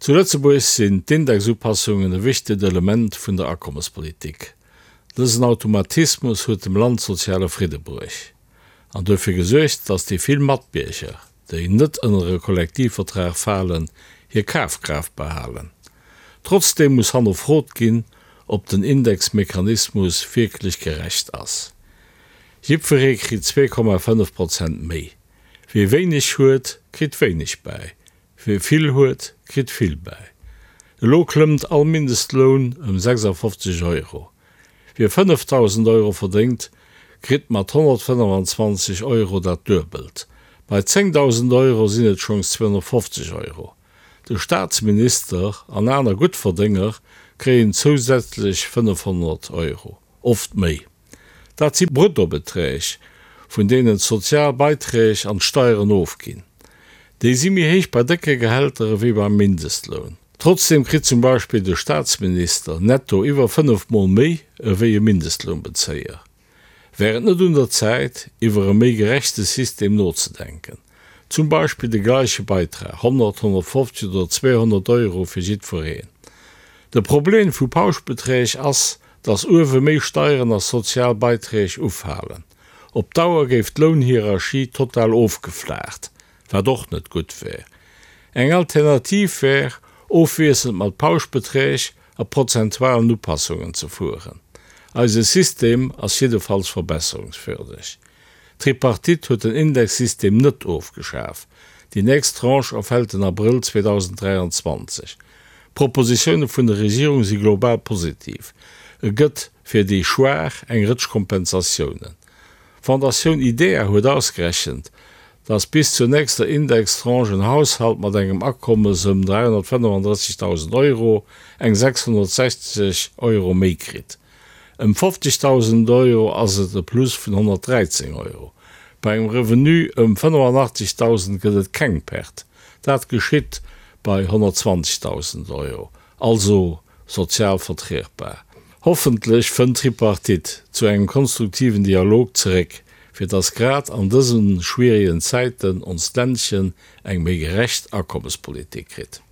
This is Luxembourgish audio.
Zu Lëtzebuerg sinn d'Indexupassungen e wichtegt Element vun der Akommespolitik. Dësen Automatismus huet dem Land soziale Fridde bruecht an duerfir gesuergt, datt déi vill Matbierger, déi net ënner e Kollektivvertrag falen, hir Kafkraaft behalen. Trotzdeem muss hannerfrot ginn, ob den Indexmechanismus wierklech gerecht ass. Jiddweree kritt 2,5 Prozent méi. Wie wéineg huet, kritt wéineg bäi. Wie vill huet, kritt vill bäi. Elo klëmmt all Mindestloun ëm 56 Euro. Wie 5.000 Euro verdéngt, kritt mat 125 Euro dat Duebelt. Bei 10.000 Euro sinn et schonns 250 Euro. De Staatsminister an aner Guttverdénger kréien zousätzlech 500 Euro, oft méi. Dat si Bruttobeträg, vun deenen d'sozial Beiträg an d'Steieren ofginn. Déi si méi héich bei décke Gehälter ewéi beim Mindestloun. Trotzdeem kritt zum Beispill de Staatsminister netto iwwer 5 Mol méi ewéi e Mindestlounbezéier. Wär et net un der Zäit, iwwer e méi gerechte System nozedenken? Zum Beispill de gleiche Beitrag, 100, 150 oder 200 Euro fir jiddwereen. De Problem vu Pauschbeträg ass, dass uewe méi Steieren a sozial Beiträg ufalen. Op Dauer géif d'Lounhierarchie total ofgeflaacht, wat och net gutt wär. Eng Alternativ wär, ofwiesselnd mat Pauschbeträg a prozentualen Upassungen ze fueren. Eise System ass jiddefalls verbesserungswürdeg. D'Tripartite huet den Indexsystem net ofgeschaf. Déi nächst Tranche erfält den Abrëll 2023. D'Propositioune vun der Regierung si global positiv. E gëtt fir déi Schwaach eng Rëtsch Kompensatiounen. D'Fondatioun IDEA huet ausgerechent, datt bis zur nächster Indextranche en Haushalt mat engem Akommes ëm 335.000 Euro eng 660 Euro méi kritt. Ëm 50.000 Euro ass et e Plus vun 113 Euro. Bei engem Revenu ëm 85.000 gëtt et keng Perte. Dat geschitt bei 120.000 Euro, also sozial vertrietbar. Hoffentlech fënnt d'Tripartite zu engem konstruktiven Dialog zeréck, fir dass grad an dëse schwieregen Zäiten onst Ländchen eng méi gerecht Akommespolitik kritt.